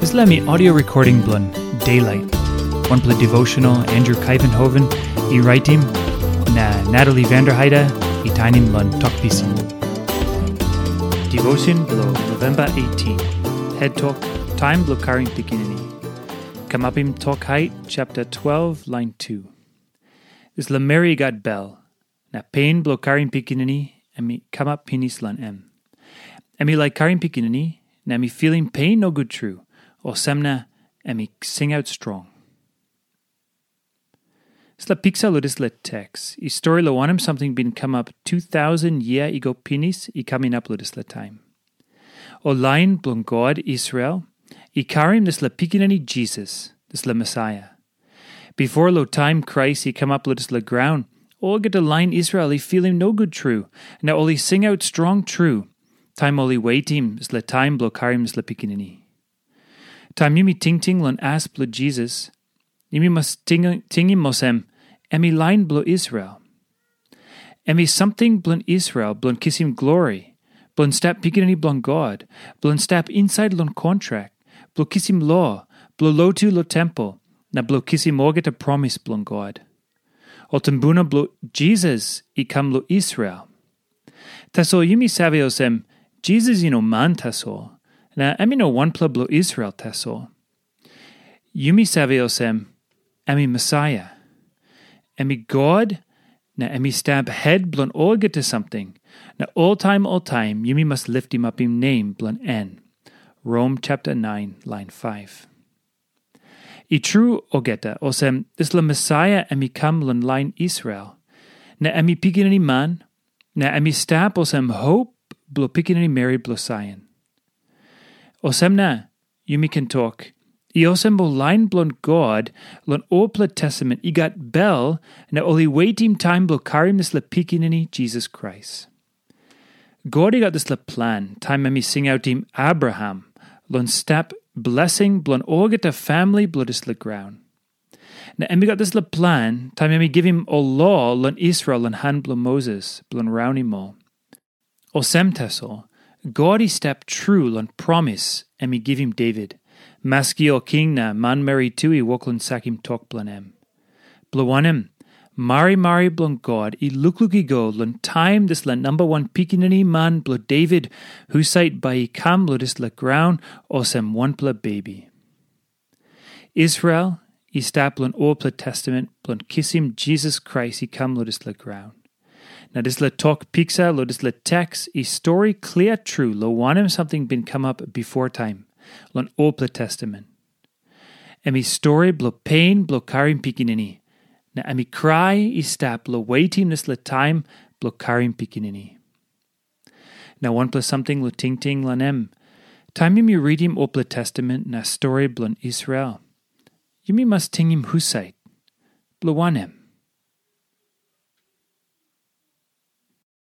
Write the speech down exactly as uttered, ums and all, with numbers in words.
Dispela mi audio recording bilong Daylight, wanpela devotional Andrew Kaivenhoven i raitim, na Natalie Vanderheide i tainim long Tok Pisin. Devotion bilong November eighteen. Head Tok, Taim bilong Karim Pikinini. Kamapim Tok Hait, chapter twelve, line two. Dispela meri i gat bel, na pen bilong karim pikinini em i kamap pinis long em. Em i laik karim pikinini, na em i filim pen nogut tru, olsem na em i singaut strong. Dispela piksa long dispela teks i stori long wanem samting bin kamap tu tausen yia i go pinis i kam inap long dispela taim. Ol lain bilong God Israel i karim dispela pikinini Jisas, dispela Mesaia. Bipo long taim Krais i kamap long dispela graun, olgeta lain Israel i filim nogut tru, na ol i singaut strong tru, taim ol i wetim dispela taim bilong karim dispela pikinini. Taim yumi tingting long as bilong Jisas, yumi mas ting- tingim olsem, em i lain bilong Israel. Em i samting bilong Israel bilong kisim glori, bilong stap pikinini bilong God, bilong stap insait long kontrak, bilong kisim lo, bilong lotu long tempel, na bilong kisim olgeta promis bilong God. Ol tumbuna bilong Jisas i kam long Israel. Tasol yumi save olsem, Jisas i no man tasol, na em i no wanpela bilong Israel tasol. Yumi save olsem, em i Mesaia. Em i God, na em i stap het bilong olgeta samting, na oltaim oltaim yumi mas litimapim nem bilong en. Rom chapter nine, line five. I tru olgeta, olsem dispela Mesaia em i kam long lain Israel, na em i pikinini man, na em i stap olsem hop bilong pikinini meri bilong Saion. Olsem na, yumi ken tok, i olsem ol lain bilong God long olpela testament i gat bel, na ol i wetim taim bilong karim dispela pikinini Jisas Krais. God i gat dispela plan taim em i singautim Abraham long stap blesing bilong olgeta famili bilong dispela graun. Na em i gat dispela plan taim em i givim ol lo long Israel long han bilong Moses bilong raunim ol. Olsem tasol, God i stap tru long promis em i givim Devit, maski ol king na manmeri tu i wok long sakim tok bilong em. Bilong wanem, marimari bilong God i lukluk i go long taim dispela namba wan pikinini man bilong Devit husat bai i kam long dispela graun olsem wanpela bebi. Israel i stap long olpela testament bilong kisim Jisas Krais i kam long dispela graun. Na dispela tok piksa long dispela teks i stori klia tru long wanem samting bin kamap bipo taim long olpela testament. Em i stori bilong pen bilong karim pikinini, na em i krai i stap long wetim dispela taim bilong karim pikinini. Na wanpela samting long tingting long em, taim yumi ritim olpela testament na stori bilong Israel, yumi mas tingim husat, bilong wanem,